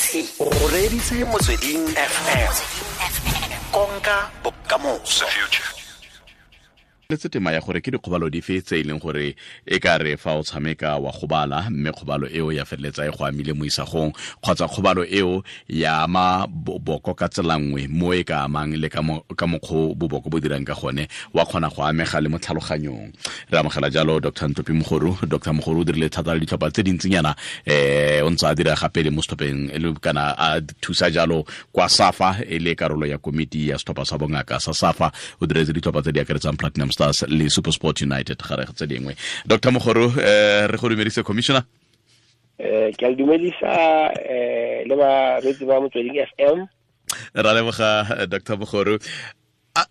O reditse Motsweding FM, konka bokamoso. Letse tema ya gore ke dikgobalo dife tse e leng gore e ka re fa o tshameka wa gobala, mme kgobalo eo ya feleletsa e go amile mo isagong, kgotsa kgobalo eo ya ama boboko ka tsela nngwe mo e ka amang le ka mokgwa boboko bo dirang ka gone, wa kgona go amega le mo tlhaloganyong. Re amogela jalo Dr Ntlopi Mogoru. Dr Mogoru o dirile thata le ditlhopha tse dintsinyana, o ntse a dira gape le mo setlhopheng kana a thusa jalo kwa SAFA, e le karolo ya komiti ya setlhopha sa bongaka sa SAFA. O diretse ditlhopha tse di akaretsang Platinum Stars le SuperSport United gare tse dingwe. Dr Mogoru, re go dumedise, commissioner. Ke a dumedisa le bareetsi ba Motsweding FM. Ra leboga, Dr Mogoru.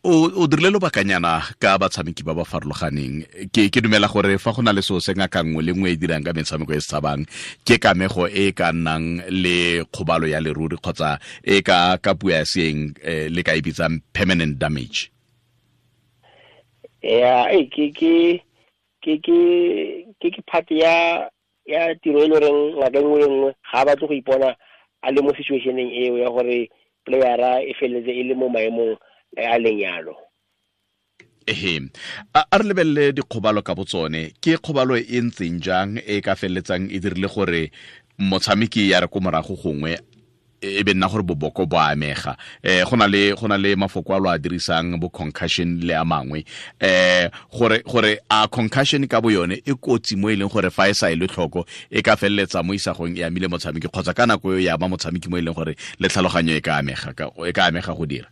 O dirile lobakanyana ka batshameki ba ba farologaneng. Ke dumela gore fa go na le seo se ngaka nngwe le nngwe e dirang ka metshameko e se tshabang, ke kamego e ka nnang le kgobalo ya leruri kgotsa e ka puo ya seeng le ka e bitsang permanent damage. Ya, e ke part ya tiro e le goreng ngaka nngwe le nngwe ga a batle go ipona a le mo situationeng eo ya gore playera e feleletse e le mo maemong a leng yalo. Ehe, a re lebelele dikgobalo ka botsone. Ke kgobalo e ntseng jang e ka feleletsang e dirile gore motshameki ya re ko morago gongwe e be nna gore boboko bo amega? Go na le mafoko a lo a dirisang, bo concussion le a mangwe, gore a concussion ka bo yone e kotsi mo e leng gore fa e sa e le tlhoko e ka feleletsa mo isagong e amile motshameki, kgotsa ka nako eo ya ama motshameki mo e leng gore le tlhaloganyo e ka amega go dira?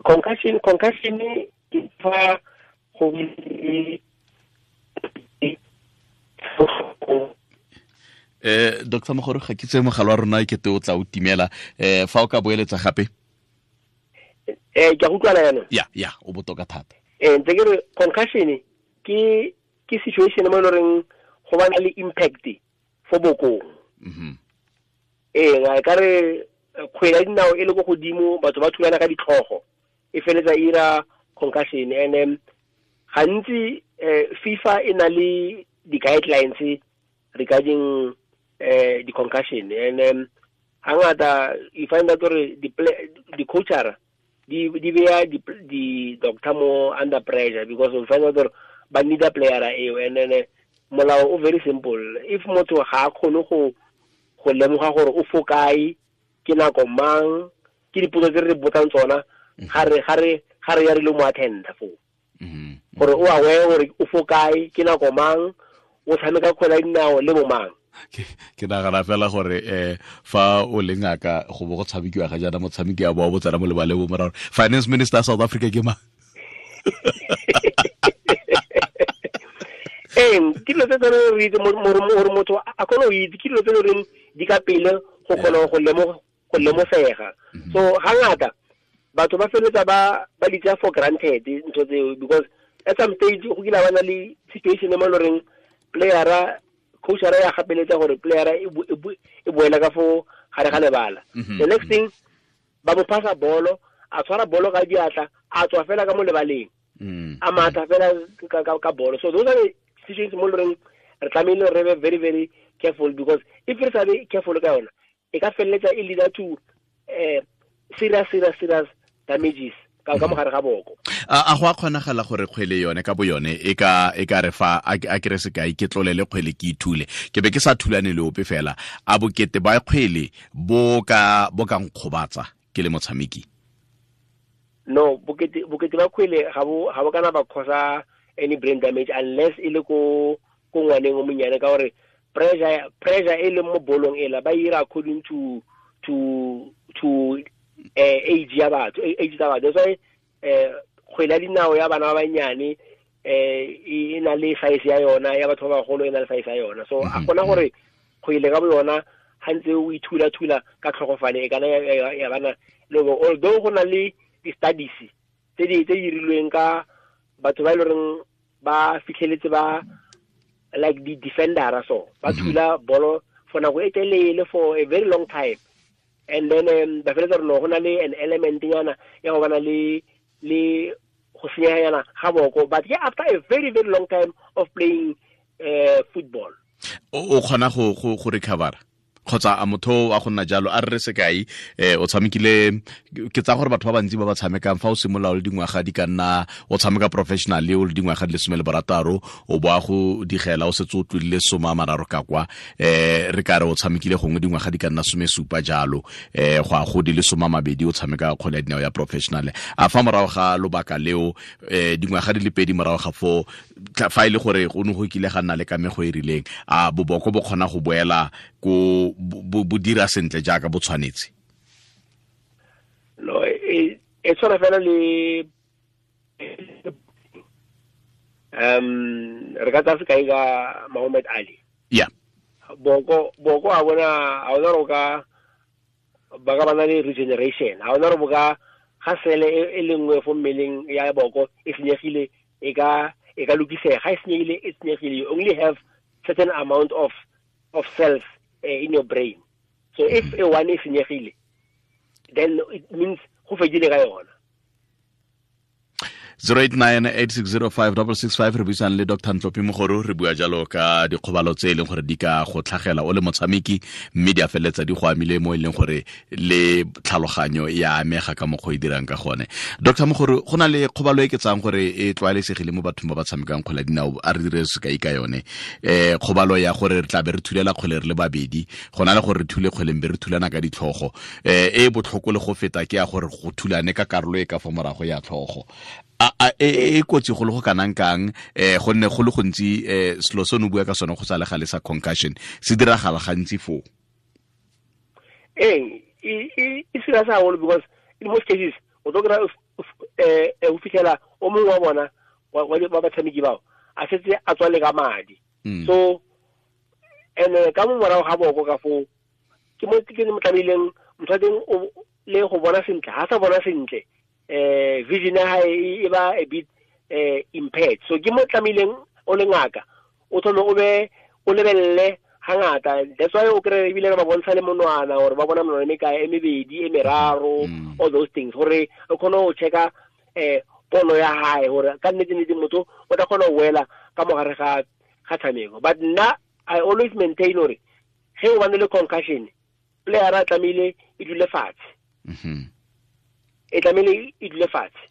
Concussion ke fa go Dr Mogoro, ga ke tse mogala wa rona e kete o tla o timela. Fa o ka boeletsa gape. Ke a utlwana yana. Ya, o botoka thata. Ntse ke re concussion ke situation mo e leng go bana le impact fo bokong. Ee, ka re kgwele ya dinao e le ko godimo, batho ba thulana ka ditlhogo, e feletsa e ira concussion. And gantsi FIFA e na le di-guidelines regarding di-concussion, and hangata you find out gore di-coachara di beya di-doctor mo under pressure, because you find out gore ba need a playera eo. And then molao o very simple: if motho ga a kgone go lemoga gore o fo kae, ke nako mang, ke dipotso tse re botsang tsona ga re ya re le mo attenda foo, gore o aware gore o fo kae, ke nako mang, o tshameka kgwele ya dinao le bo mang. Ke nagana fela gore fa o le ngaka, go bo go tshamekiwa ga jaana, motshameki ya bo tsena mo lebaleng bo morago, finance minister South Africa ke mang? Ee, ke dilo tse tsone re itse gore motho a kgone go itse, ke dilo tse le di ka pele go kgona go lemosega. So hangata batho ba feletsa ba di tsaya for granted ntho tseo, because at some stage go kile ba na le situation mo e loreng playera, coachara ya gapeletsa gore playera e boela ka fo gare ga lebala. The next thing, ba mo phasa bolo, a tshwara bolo ka diatla, a tswa fela ka mo lebaleng, a matha fela ka bolo. So those are the situations mo loreng re tlamehile re be very, very careful, because if re sa be careful ka yona, e ka feleletsa e leader to serious, serious, serious damages ka mogare ga boko. A go a kgonagala gore kgwele yone ka bo yone e ka re fa a kere sekai, ke tlolele kgwele, ke ithule, ke be ke sa thulane le ope fela, a bokete ba kgwele bo ka nkgobatsa ke le motshameki? No, bokete ba kgwele ga bo kana ba causa any brain damage, unless e le ko ngwaneng o monyane, ka gore pressure e leng mo bolong ela ba ira according to age ya batho, age tsa batho. That's why kgwele ya dinao ya bana ba banyane e na le size ya yona, ya batho ba bagolo e na le size ya yona. So a gona gore kgwele ka bo yona ga ntse o ithula-thula ka tlhogofane e kana ya bana le, although go na le di-studies tse di dirilweng ka batho ba e leng ba fitlheletse ba like di-defendera, so ba thula bolo for nako e telele, for a very long time, and then ba feletsa gore no, go na le an element nyana ya go bana le go senyeganyana ga boko, but ke after a very, very long time of playing football. O kgona go recover Kgotsa a motho a go nna jalo a re sekai o tshamekile, ke tsa gore batho ba bantsi ba ba tshamekang fa o simolola o le dingwaga di ka nna o tshameka professionally o le dingwaga di le 16, o boa go digela o setse o tlodile 30 ka kwa, re ka re o tshamekile gongwe dingwaga di ka nna 17 jalo, go a go di le 20 o tshameka kgwele ya dinao ya professional. A fa morago ga lobaka leo, dingwaga di le 2 morago ga foo, fa e le gore go ne go kile ga nna le kamego e rileng, a boboko bo kgona go boela ko bo dira sentle jaaka bo tshwanetse? No, e tshwana fela le re ka tsaya sekai ka Muhammad Ali. Yeah. Boko a bona a ona ro ka ba ka bana le regeneration, a ona ro boka ga sele e lengwe fo mmeleng ya boko e senyegile, e ka lokisega. Ga e senyegile, e senyegile. You only have certain amount of cells in your brain. So if a one is senyegile, then it means go fedile ka yona. 0898605665 re buisang le Dr. Ntlopi Mogoro, re bua jalo ka dikgobalo tse e leng gore di ka go tlhagela o le motshameki, mme di a feleletsa di go amile mo e leng gore le tlhaloganyo ya amega ka mokgwa e dirang ka gone. Dr. Mogoro, go na le kgobalo e ke tsang gore e tlwaelesegile mo bathong ba ba tshamekang kgwele ya dinao, a re dire sekai ka yone, kgobalo ya gore re tla be re thulela kgwele re le babedi, go na le gore re thule kgwele be re thulana ka ditlhogo, e botlhoko le go feta ke ya gore go thulane ka karolo e ka fa morago ya tlhogo. A e kotsi go le go kanang kang, gonne go le gontsi selo se o bua ka sone go sa le gale sa concussion se diragala gantsi foo? E serious haholo, because in most cases o tlo kry-a o fitlhela o mongwe wa bona wa batshameki bao a setse a tswale ka madi. So and ka mo morago ga boko ka foo ke mo ke mo tlamehileng motho wa teng le go bona sentle, ha sa bona sentle, vision ya hae e ba a bit impaired. So ke mo tlamehileng o le ngaka o thome o be o lebelele hangata. That's why o kry ebile re ba bontsha le monwana, gore ba bona monwana e mekae, e mebedi, e meraro, all those things, gore o kgone go checka pono ya hae gore ka nnete-nnete motho o tla kgona go wela ka mogare ga tshameko. But nna I always maintain gore ge o bane le concussion, player a tlamehile e dule fatshe. E tlamehile e dule fatshe.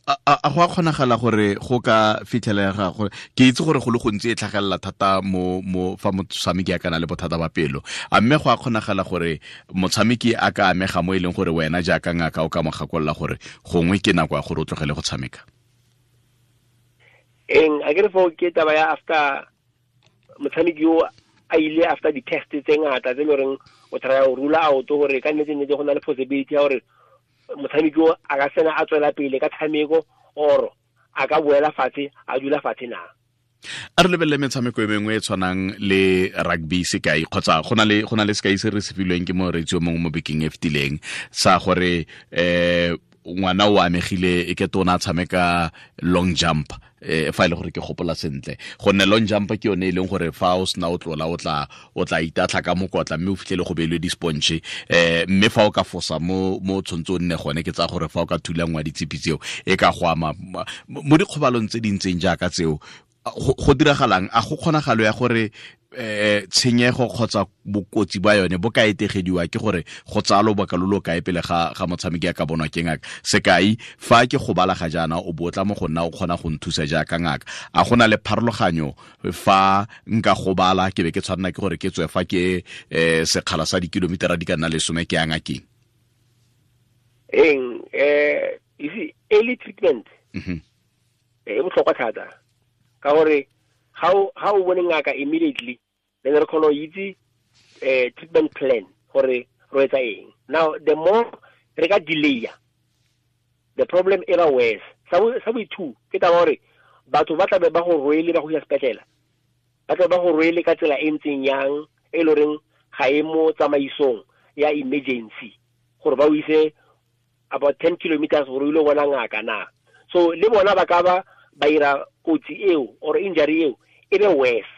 A go a kgonagala gore go ka fitlhelega gore ke itse gore go le gontsi e tlhagelela thata mo fa motshameki a kana le bothata ba pelo, a mme go a kgonagala gore motshameki a ka amega mo e leng gore wena jaaka ngaka o ka mo gakolola gore gongwe ke nako ya gore o tlogele go tshameka? Eng a ke re fo ke taba ya after motshameki yo a ile after di-test tse ngata tse e le goreng o try go rula out gore ka nnete-nnete go na le possibility ya gore motshameki o a ka sena a tswela pele ka tshameko, or a ka boela fatshe a dula fatshe na. A re lebelele metshameko e mengwe e tshwanang le rugby sekai, kgotsa go na le sekai se re se filweng ke moreetsi o mongwe mo bekeng e fetileng sa gore ngwana o amegile e ke tona a tshameka long jump, fa e le gore ke gopola sentle, gonne long jump ke yone e leng gore fa o sena o tlola o tla itatlha ka mokotla mme o fitlhele go beilwe di-sponge, mme fa o ka fosa mo tshwanetse o nne gone, ke tsa gore fa o ka thulangwa ditshipi tseo e ka go ama mo dikgobalong tse di ntseng jaaka tseo. Go diragalang? A go kgonagalo ya gore tshenyego kgotsa bokotsi ba yone bo ka etegediwa ke gore go tsaya lobaka lo lo kae pele ga motshameki a ka bonwa ke ngaka? Sekai, fa ke gobala ga jaana o bo tla mo go nna o kgona go nthusa jaaka ngaka, a go na le pharologanyo fa nka gobala ke be ke tshwanela ke gore ke tswe fa ke sekgala sa dikilomitara di ka nna 10 ke ya ngakeng? Eng you see, early treatment e botlhokwa thata, ka gore ga o bone ngaka immediately, then re kgona go itse treatment plan gore re etsa eng. Now the more re ka delay, the problem e ba worse. Sa bo two ke taba gore batho ba tlabe ba go rwele ba go ya sepetlele, ba tlabe ba go rwele ka tsela e ntseng yang e le goreng ga e mo tsamaisong ya emergency gore ba o ise about 10 kilometers gore o ile bona ngaka na. So le bona ba ka ba ba ira kotsi eo or injury eo e be worse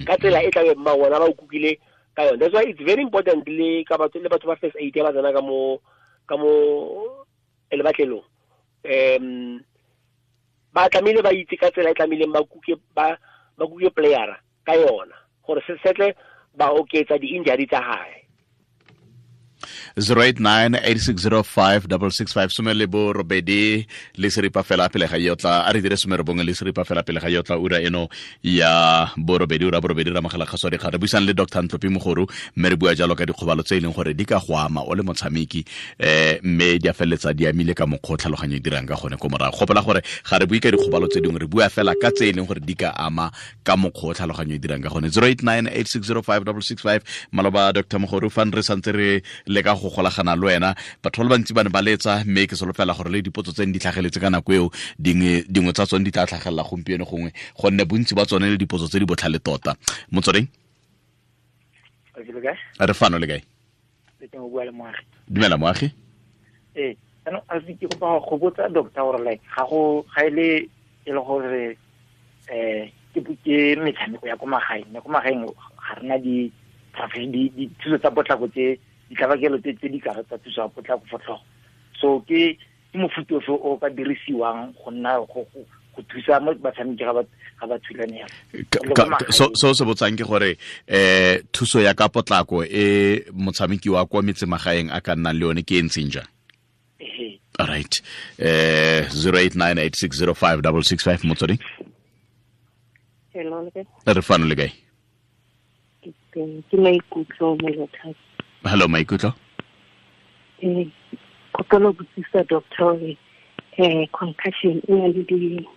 ka tsela e tlabe ba bona ba o kukile ka yone. That's why it's very important le ka batho le batho ba first aid ba tsena ka mo lebatlelong, ba tlamehile ba itse ka tsela e tlamehileng ba kuke ba kuke playera ka yona gore se setle ba oketsa di-injury tsa gae. 089 8605 665 08 pele ga yotla a re dire 91 fela pele ga yotla ura eno ya borobedi ura borobedi ra mogala kgaso dikgang. Re buisang le Dr Ntlopi Mogoru, mme re bua jalo ka dikgobalo tse e leng gore di ka go ama o le motshameki, mme di a feleletsa di amile ka mokgwa o tlhaloganyo e dirang ka gone ko morago. Gopola gore ga re bue ka dikgobalo tse dingwe, re bua fela ka tse e leng gore di ka ama ka mokgwa o tlhaloganyo e dirang ka gone. 089 8605 665. Maloba, Dr Mogoru, fa re santse re leka go golagana le wena, batho ba le bantsi ba ne ba letsa, mme ke solofela gore le dipotso tse di tlhageletse ka nako eo, dingwe tsa tsone di tla tlhagelela gompieno gongwe, gonne bontsi ba tsone le dipotso tse di botlhale tota. Motsweding, re fano le kae? Dumela, Moagi. Ee, jaanong a ke kopa go botsa doctor gore like ga go ga ile e le gore ke metshameko ya ko magaeng, mme ko magaeng ga rena di dithuso tsa potlako, tse ditlabakelo tse di kare tsa thuso ya potlako for tlhogo. So ke mofuta ofe o ka dirisiwang go nna go thusa mo batshameki ga ba thulane yalo? So se botsang ke gore thuso ya ka potlako e motshameki wa kwa metsemagaeng a ka nnang le yone ke e ntseng jang? All right, 0898605665, Motsweding. Hello. Re fano, le kae? Ke Maikutlo Molothapi. Hello, Maikutlo. Kopelo botsisa doctor hore concussion e na le di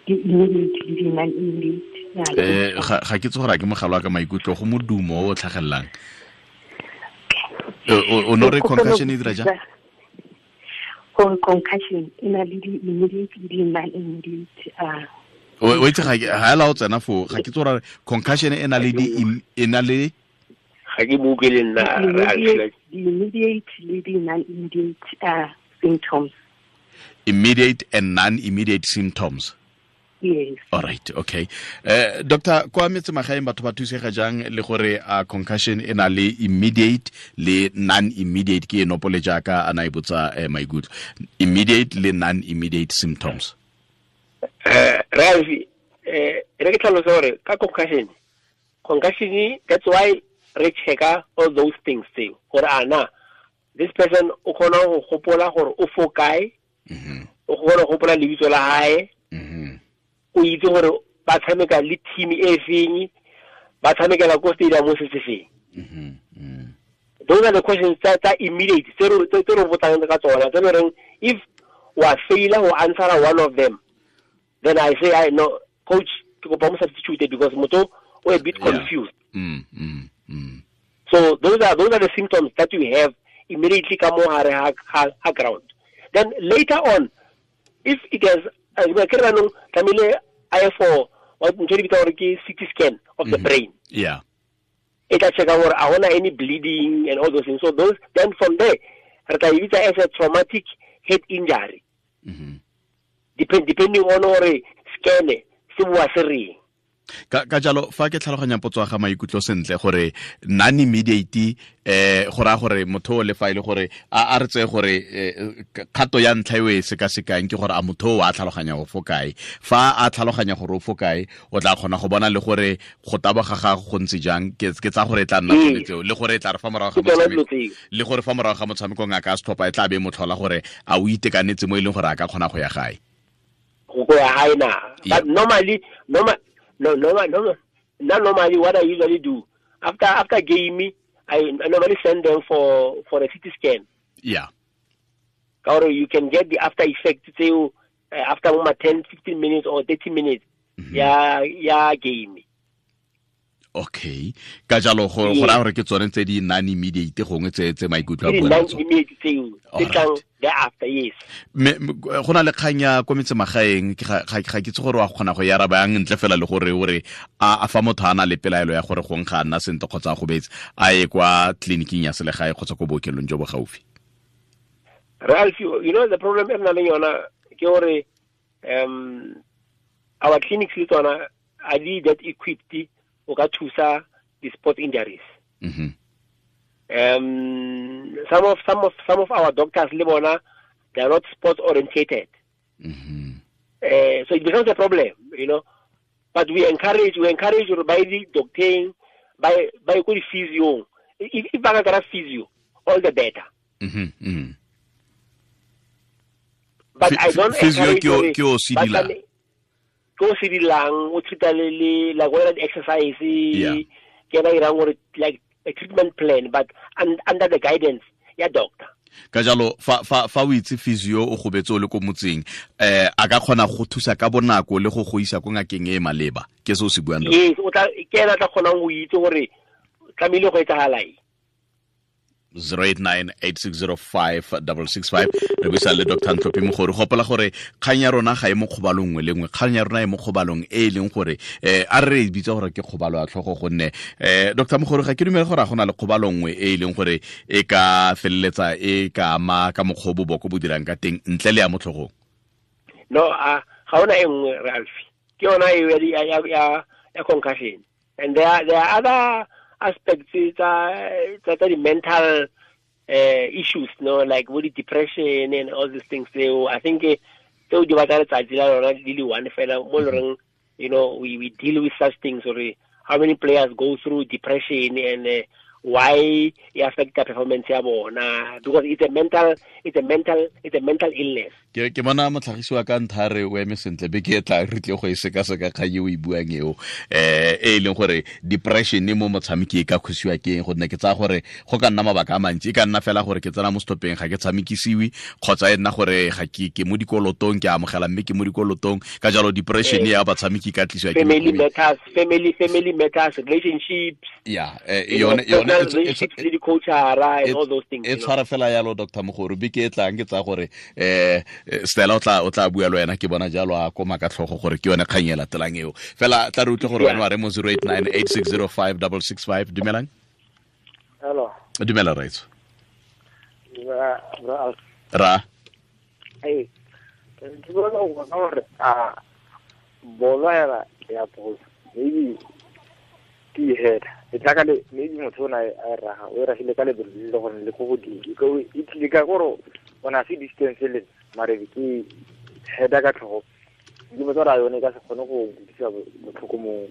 immediate le di non immediate? Ga ke tse gore a ke mogala wa ka, Maikutlo, go modumo o o tlhagelelang. O no re concussion e dira jang? Gore concussion e na le di immediate le di non immediate. O itse ga ela o tsena foo, ga ke tse gore concussion e na le di e na le Ga ke mo utlwe le nna. Immediate le di non immediate symptoms. Immediate and non-immediate symptoms. Yes. All right, okay. Doctor, kwa metsemagaeng batho ba thusega jang, le gore a concussion e na le immediate le non-immediate, ke e nopole jaaka a na e botsa maikutlo, immediate le non-immediate symptoms? Ralfi, re ke tlhalose gore ka concussion, that's why re checka all those things tseo, gore ana this person o kgona go gopola gore o fo kae, o kgona go gopola lebitso la hae, o itse gore ba tshameka le team e feng, ba tshamekela ko stadium se se feng. Those are the questions tsa immediate tse re botsang ka tsona, tse le reng if wa faila go answer one of them, then I say, "I no, coach, ke kopa mo substitute because motho o a bit confused." So those are the symptoms that you have immediately ka mo hare ha ground. Then later on, if it has, ke re anong tlamehile a ye for what ntho e di bitsa gore ke CT scan of the brain. E tla checka gore a hona any bleeding and all those things. So those, then from there re tla e bitsa as a traumatic head injury. Depending on gore scan se bua se reng. Ka jalo, fa ke tlhaloganya potso ya ga Maikutlo sentle, gore non immediate go raya gore motho o le fa e le gore a re tseye gore kgato ya ntlha eo e sekasekang ke gore a motho o a tlhaloganya go fo kae. Fa a tlhaloganya gore o fo kae, o tla kgona go bona le gore go taboga ga go ntse jang. Ke tsa gore e tla nna tsone tseo, le gore e tla re fa morago ga motshameko, le gore fa morago ga motshameko ngaka ya setlhopha e tla be e motlhola gore a o itekanetse mo e leng gore a ka kgona go ya gae. Go ya gae na. But normally, normal, no, no, no, not normally. What I usually do after game, I normally send them for a CT scan. Or you can get the after effect tseo after uma 10, 15 minutes or 30 minutes ya game. Okay, ka jalo go raya gore ke tsone tse di non immediate gongwe tse Maikutlo a Ke buang non ka tsone. Immediate tseo tse tlang thereafter, yes. Me go na le kgang ya ko metsemagaeng, ke ga ke itse gore wa kgona go e araba yang ntle fela le gore o re a fa motho a na le pelaelo ya gore gongwe ga a nna sentle kgotsa a gobetse, a ye kwa tleliniking ya selegae kgotsa ko bookelong jo bo gaufi. Ralph, you know the problem e re nang le yona ke gore our clinics le tsona are di that equipped o ka thusa the sport injuries. Some of our doctors le bona, they are not sport orientated. So it becomes a problem. But we encourage gore ba ye di-docteng, ba ye ko di-physiong. If ba ka kry-a physio, all the better. But I don't physio ke o sedilang. Ke o sedilang, o treat-a le like whether exercise, ke ena irang gore like a treatment plan, but under the guidance ya doctor. Ka jalo fa o itse physio o gobetse o le ko motseng, a ka kgona go thusa ka bonako le go go isa ko ngakeng e maleba. Ke se o se buang. Yes, o tla ke ena tla kgonang go itse gore tlamehile go etsagala eng. 089-8605-665. Re buisa le Dr. Ntlhophi Mogori. Gopola gore kgang ya rona ga e mo kgobalong nngwe le nngwe, kgang ya rona e mo kgobalong e e leng gore a re e bitsa gore ke kgobalo ya tlhogo, gonne Dr. Mogori ga ke dumele gore a gona le kgobalo nngwe e e leng gore e ka feleletsa e ka ama ka mokgwa o boboko bo dirang ka teng ntle le ya mo tlhogong. No, ga ona e nngwe, Ralph. Ke yona e ya concussion. And there are other aspects tsa the mental issues, no, like with the depression and all these things. So I think tseo di batla letsatsi la lona di le one fela mo loreng, you know, we deal with such things. Or how many players go through depression and why e affect the performance ya bona, because it's a mental illness. Ke bona motlhagisi wa ka ntha re o eme sentle be ke tla re tle go e sekaseka kgang e o e buang eo, e leng gore depression mo motshameki e ka khosiwa ke eng, gonne ke tsaya gore go ka nna mabaka a mantsi. E ka nna fela gore ke tsena mo stopeng ga ke tshamekisiwe, kgotsa e nna gore ga ke mo dikolotong, ke amogela mme ke mo dikolotong. Ka jalo depression ya batshameki ka tlisiwa ke family matters, family matters, relationships. Yeah, yone relationships le di-coachara and all those things. E tshwara fela yalo Dr. Mogori, be ke e tlang ke tsaya gore Stella o tla bua le wena, ke bona jalo a koma ka tlhogo gore ke yone kgang e latelang eo. Fela tla re utlwe gore wena wa re mo 089-8605-665. Dumelang. Hello. Dumela raitso. Ra. Hey. Ke bona gore a bolo ya bolo maybe ke head e tla ka le maybe motho o na a raga o ragile ka lebelo le gore le go godimo e tlile ka gore o na se distance le mare ke head ka tlhogo ke botsa ra yone ka se kgone go utlwisa botlhoko mo.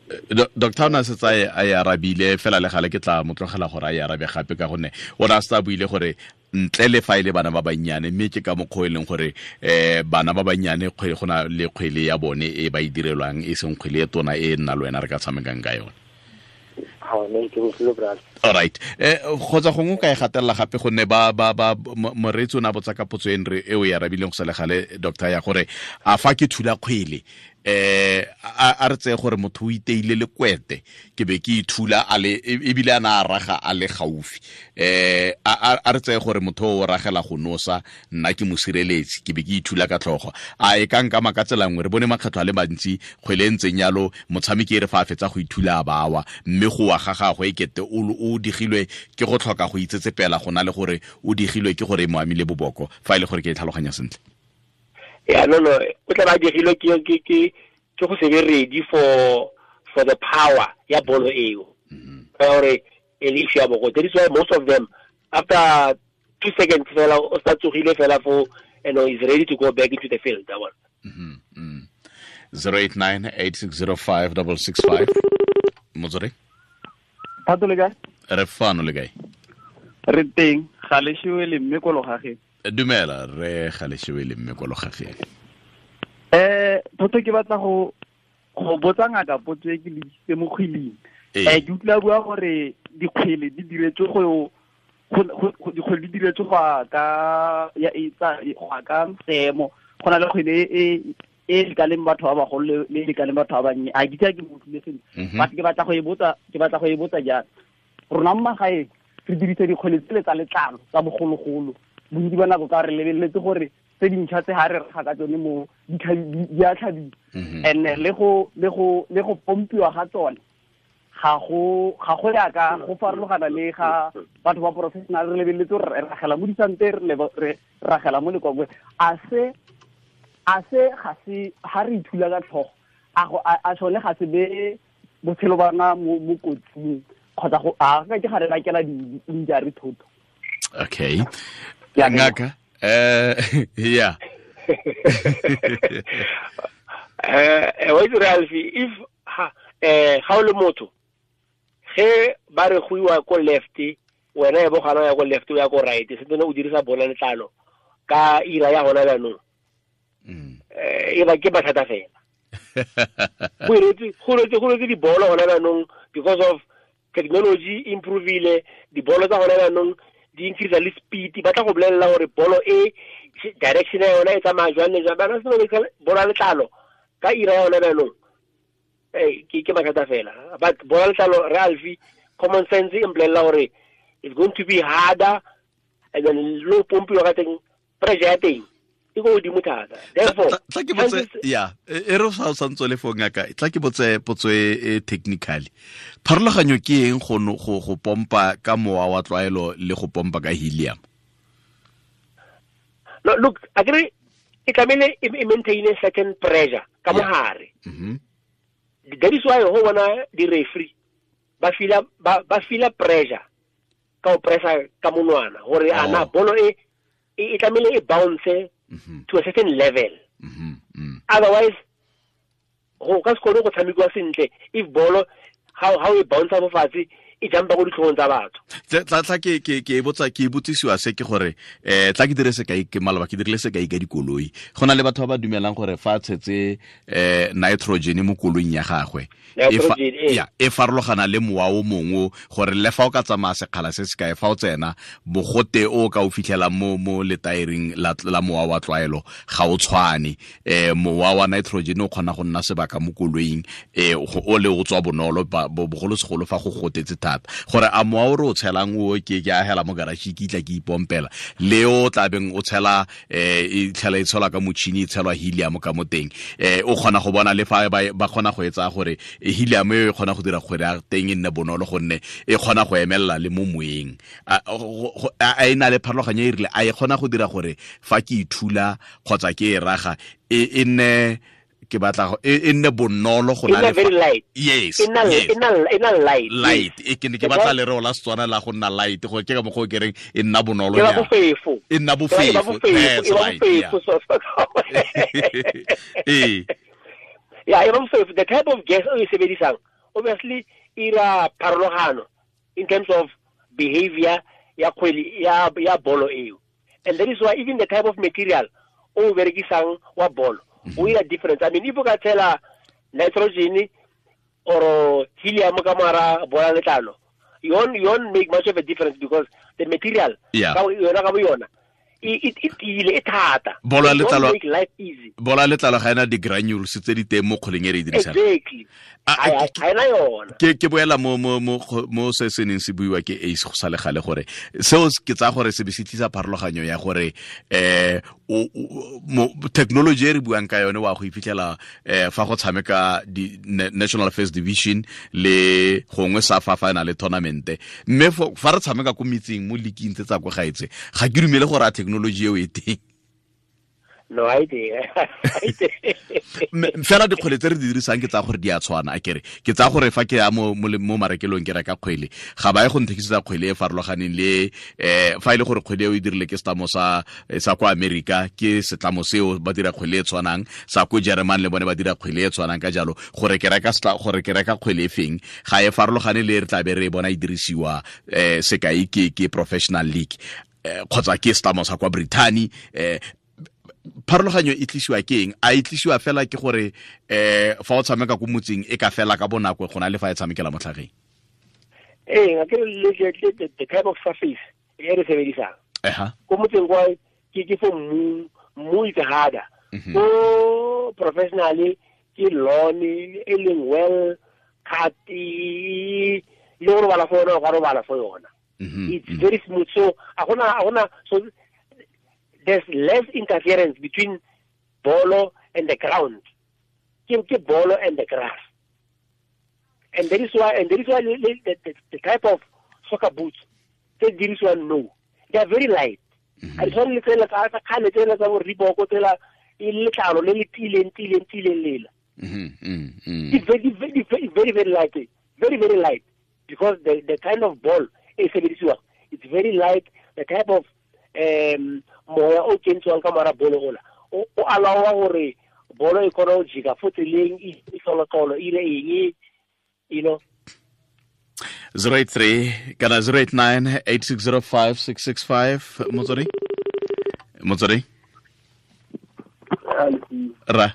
Doctor o na se tsaye a e arabile fela le gale ke tla mo tlogela gore a e arabe gape, ka gonne o na se tsa buile gore ntle le fa ile bana ba bannyane, mme ke ka mokgwa e leng gore bana ba bannyane kgwele go na le kgwele ya bone e ba e direlwang, e seng kgwele e tona e nna le wena re ka tshamekang ka yone. All right. Kgotsa gongwe ka e gatelela gape gonne ba moreetsi o ne a botsa ka potso e e o e arabileng go sa le gale, doctor, ya gore a fa ke thula kgwele a re tseye gore motho o iteile le kwete, ke be ke ithula a le ebile a na a raga a le gaufi, a re tseye gore motho o ragela go nosa, nna ke mo sireletsi, ke be ke ithula ka tlhogo, a e ka nkama ka tsela nngwe? Re bone makgetlho a le mantsi kgwele e ntseng yalo motshameki e re fa a fetsa go ithula a bawa, mme go wa ga gagwe e kete o digilwe ke go tlhoka go itsetsepela go na le gore o digilwe ke gore e mo amile boboko, fa e le gore ke e tlhaloganya sentle. Yeah, no, o tla ba digilwe ke go se be ready for the power ya bolo eo. Ka gore e le issue ya boko. That is why most of them after 2 seconds fela o sa tsogile fela for, you know, is ready to go back into the field, that one. 089-8605-665. Motsore? Thato le kae? Re fano le kae? Re teng, ga le shewe le mme ko logageng. Dumela, re ga le shewe le mme ko logageng. Thotho ke batla go botsa ngaka potso e ke le isitse mo kgweleng. Ke utlwa bua gore dikgwele di diretswe go dikgwele di diretswe go ka ya etsa go ka seemo, go na le kgwele e e lekaneng batho ba bagolo le lekaneng batho ba bannye. A ke itse ke mo utlwile sentle, but ke batla go e botsa, ke batla go e botsa jang. Rona mo magaeng re dirisa dikgwele tsele tsa letlalo tsa bogologolo, bontsi ba nako ka re lebeletse gore tse dintšha tse ga re raga ka tsone mo di a tlhabiwa, and le go pompiwa ga tsone ga go ya ka go farologana le ga batho ba professional. Re lebeletse gore re ragela mo disante, re ragela mo lekwakwe. A se ga se ga re ithula ka tlhogo, a sone ga se be botshelo ba rona mo kotsing, kgotsa go a ka ke ga re bakela di-injury thotho. Okay. Ngaka, yeah. Wa itse Ralph, if ga o le motho, Ge ba re go iwa ko left, wena e bo gana ya ko left o ya ko right, se tsene o dirisa bola letlalo ka ira ya hona jaanong. E ba ke mathata fela. Go iretse dibolo hona jaanong because of technology improvile, dibolo tsa hona jaanong di increase le speed, ba tla go bolelela gore bolo e direction ya yona e tsamaya jwang le jwang. Ba se bola letlalo ka ira ya hona jaanong. Ke mathata fela. But bola letlalo re alfi common sense e mpolelela gore it's going to be harder, and then low pompiwa ka teng, pressure ya teng e ko godimo thata. Therefore tla ke botse ya e re sa santse le fo ngaka, tla ke botse potso e technically. Pharologanyo ke eng go pompa ka mowa wa tlwaelo le go pompa ka helium? No, look, akere e tlamehile e maintain a certain pressure ka mogare. That is why ho bona di referee ba feel pressure ka o pressa ka monwana gore ana bolo e tlamehile e bounce to a certain level. Otherwise go ka se kgone go tshamekiwa sentle if bolo how e bounce mo fatshe e jumpa go ditlhogong tsa batho. Tla ke botsa ke botsisiwa se ke gore tla ke dire sekai ke maloba ke dirile sekai ka dikoloi. Go na le batho ba ba dumelang gore fa tshetse nitrogen mo koloing ya gagwe e farologana le mowa o mongwe, gore le fa o ka tsamaya sekgala se se kae fa o tsena bogote o ka o fitlhela mo letaering la mowa wa tlwaelo ga o tshwane. Mowa wa nitrogen o kgona go nna sebaka mo koloing, o le o tswa bonolo bogolosegolo fa go gotetse thata, gore a mowa o re o tshelang o ke agela mo garage ke itla ke ipompela le o tlabeng o tshela e tlhela e tshelwa ka motšhini e tshelwa helium ka mo teng, o kgona go bona le fa ba kgona go etsa gore helium e kgona go dira gore a teng e nne bonolo gonne e kgona go emelela le mo moeng. A e na le pharologanyo e rile a e kgona go dira gore fa ke ithula kgotsa ke e raga e nne ke batla e nne bonolo go na le very light. Yes, e nna light. Light e ke batla lereo la Setswana la go nna light, go ke ka mokgwa o ke reng e nna bonolo ya bofefo. E nna bofefo. That's right. Yeah, e bofefo. The type of gas o e sebedisang obviously ira pharologano in terms of behavior ya kgwele ya bolo eo. And that is why even the type of material o berekisang wa bolo o ira difference. I mean, if o ka tshela nitrogen or helium ka mara bola letlalo, you won't make much of a difference because the material ka yona ka bo yona e tiile e thata. Bola letlalo make life easy. Bola letlalo ga ena di-granules tse di teng mo kgoleng e re e dirisang. Exactly. Ga ena yona. Ke boela mo se se neng se buiwa ke Ace go sa le gale gore seo ke tsaya gore se be se tlisa pharologanyo ya gore technology e re buang ka yone wa go iphitlhela fa go tshameka di National First Division le gongwe sa fa fa na le tournament, mme fa re tshameka ko metseng mo leaking tse tsa kwa gaetse ga ke dumele gore a technology eo e teng. No, I did. Fela dikgwele tse re di dirisang ke tsa gore di a tshwana, akere ke tsa gore fa ke ya mo marekelong ke reka kgwele ga ba ye go nthekisetsa kgwele e farologaneng le fa e le gore kgwele eo e dirile ke setlamo sa kwa Amerika, ke setlamo seo ba dira kgwele e tshwanang, sa ko German le bone ba dira kgwele e tshwanang, ka jalo gore ke reka kgwele e feng ga e farologane le re tla be re e bona e dirisiwa sekai ke professional league kgotsa ke setlamo sa kwa Brittany. Pharologanyo e tlisiwa ke eng? A e tlisiwa fela ke gore fa o tshameka ko motseng e ka fela ka bonako go na le fa e tshamekela mo tlhageng? Ee, akere the type of surface e re sebedisang ko motseng kwa ke fo mmu is harder, ko professionally ke lawn e leng well cut le go robala fo yona o ka robala fo yona. It's very smooth, so a gona so there's less interference between bolo and the ground. Ke bolo and the grass. And that is why the type of soccer boots tse dirisiwang no, they are very light. A di tshwane le tsela tsa kgale tsela tsa bo Reebok tsela e letlalo le le tileng lela. It's very very very light, very very light, because the kind of ball e sebedisiwang, it's very light. The type of moya o kentswang ka mara bolo ola o allowa gore bolo e kgone go jika fo tseleng e tlolotlolo ile eng, you know. 083 kana 089 8605 665. Motswedi, Motswedi. Ra.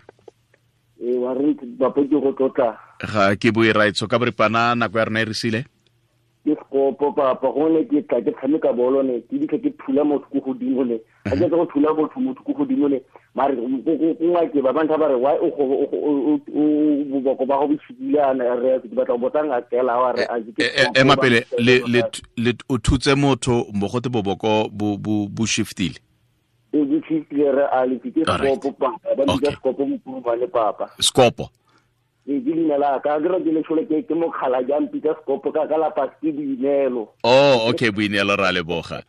Wa re papa ke go tlotla. Ga ke bue raitso ka boripana, nako ya rona e re sile. Ke sekopo papa, gone ke tla ke tshameka bolo ne, ke ditlha ke thula motho ko godimo ne. Ga ke go thula motho ko godimo ne, mare go ngake ba bantha ba re why o go o boko ba go bishikile ana re ke batla go botsa ngakela wa re a ke ema pele le le o thutse motho mbogote boboko bo bo bo shiftile. E bo shiftile re a le ke sekopo papa, ba bitsa sekopo mokurumane papa. Sekopo. Ke leina la ka, ke re ke le tshole ke mokgala jang pitsa sekopo ka ka lapa ke Boineelo. Oh, okay, Boineelo, ra leboga.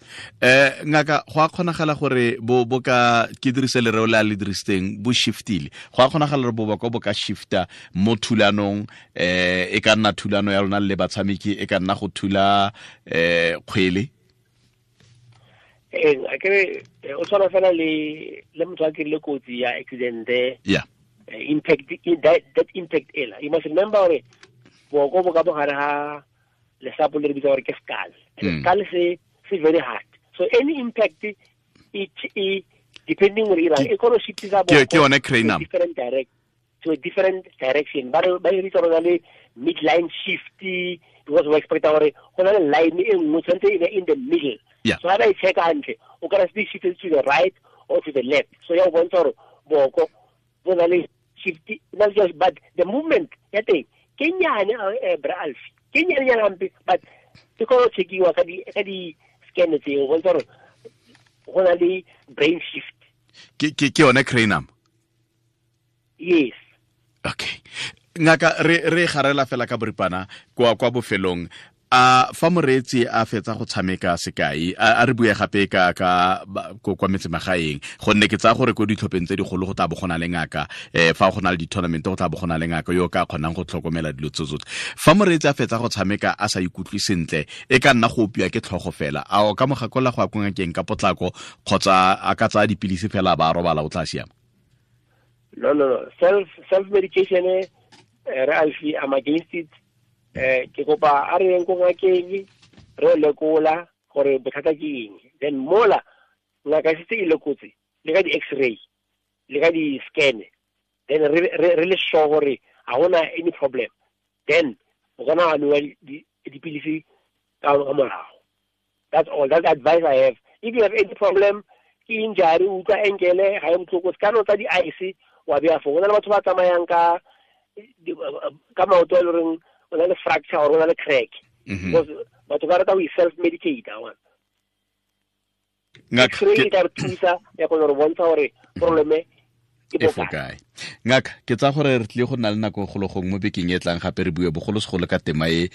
Ngaka, go a kgonagala gore bo bo ka ke dirise lereo le a le dirisitseng, bo shiftile. Go a kgonagala gore boboko bo ka shifta mo thulanong, e ka nna thulano ya lona le batshameki, e ka nna go thula kgwele. A kere o tshwana fela le motho a kirile kotsi ya accident. Yeah. Impact that impact ela. You must remember gore boko bo ka bogare ha lesapo le re bitsa gore ke skull. And skull se very hard. So any impact it depending on ira e kgona shiftisa boko. Ke yone cranium. Different direct to a different direction. Ba re bitsa gore le midline shift because we expect gore go na le line e nngwe tshwanetse e be in the middle. Yeah. So ha ba e check hantle, o ka re shift to the right or to the left. So ya o bontsha gore boko bo na le shift, not just but the movement ya teng ke nyane bra Alfi, ke nyane nyane hampe, but ke go checkiwa ka di scan tseo go bontsha gore go na le brain shift. Ke yone cranium. Yes. Okay. Ngaka, re garela fela ka boripana kwa bofelong. A fa moreetsi a fetsa go tshameka sekai, a re bue gape ka kwa metsemagaeng, gonne ke tsaya gore ko ditlhopheng tse digolo go tla bo go na le ngaka, fa go na le di-tournament go tla bo go na le ngaka yo ka kgonang go tlhokomela dilo tse tsotlhe. Fa moreetsi a fetsa go tshameka a sa ikutlwe sentle, e ka nna go opiwa ke tlhogo fela, a o ka mo gakolla go ya ko ngakeng ka potlako, kgotsa a ka tsaya dipilisi fela ba robala o tla siama? No. Self medication, re Alfi, I'm against it. Ke kopa a re yeng ko ngakeng re lekola gore bothata ke eng, then mola ngaka e setse e lekotse le ka di-x-ray le ka di-scan, then re le sure gore ga gona any problem, then o kana wa nwa dipilisi ka morago. That's all, that's the advice I have. If you have any problem, ke injury, o utlwa ankle ga e botlhoko, se ka no tsa di-ice wa beya foo. Go na le batho ba tsamayang ka maoto a le goreng o na le fracture or o na le crack. Because batho ba rata go self-medicate. X-ray e tla re thusa ya go re bontsha gore problem e bokae. Ngaka, ke tsa gore re tlile go nna le nako golo gongwe mo bekeng e tlang gape re bue bogolosegolo ka tema e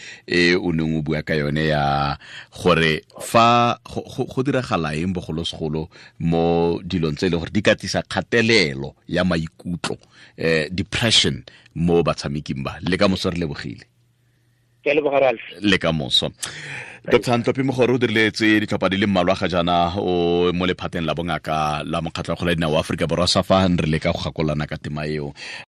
o neng o bua ka yone ya gore fa go diragala eng bogolosegolo mo dilong tse e leng gore di ka tlisa kgatelelo ya maikutlo, depression mo batshameking ba. Le ka moso re lebogile. Le ka moso. Dr. Ntlopi Mogoro o diriletse ditlhopha di le mmalwa ga jaana o mo lephateng la bongaka la Mokgatlho wa Kgwele ya Dinao wa Aforika Borwa, SAFA, re leka go gakolana ka tema eo.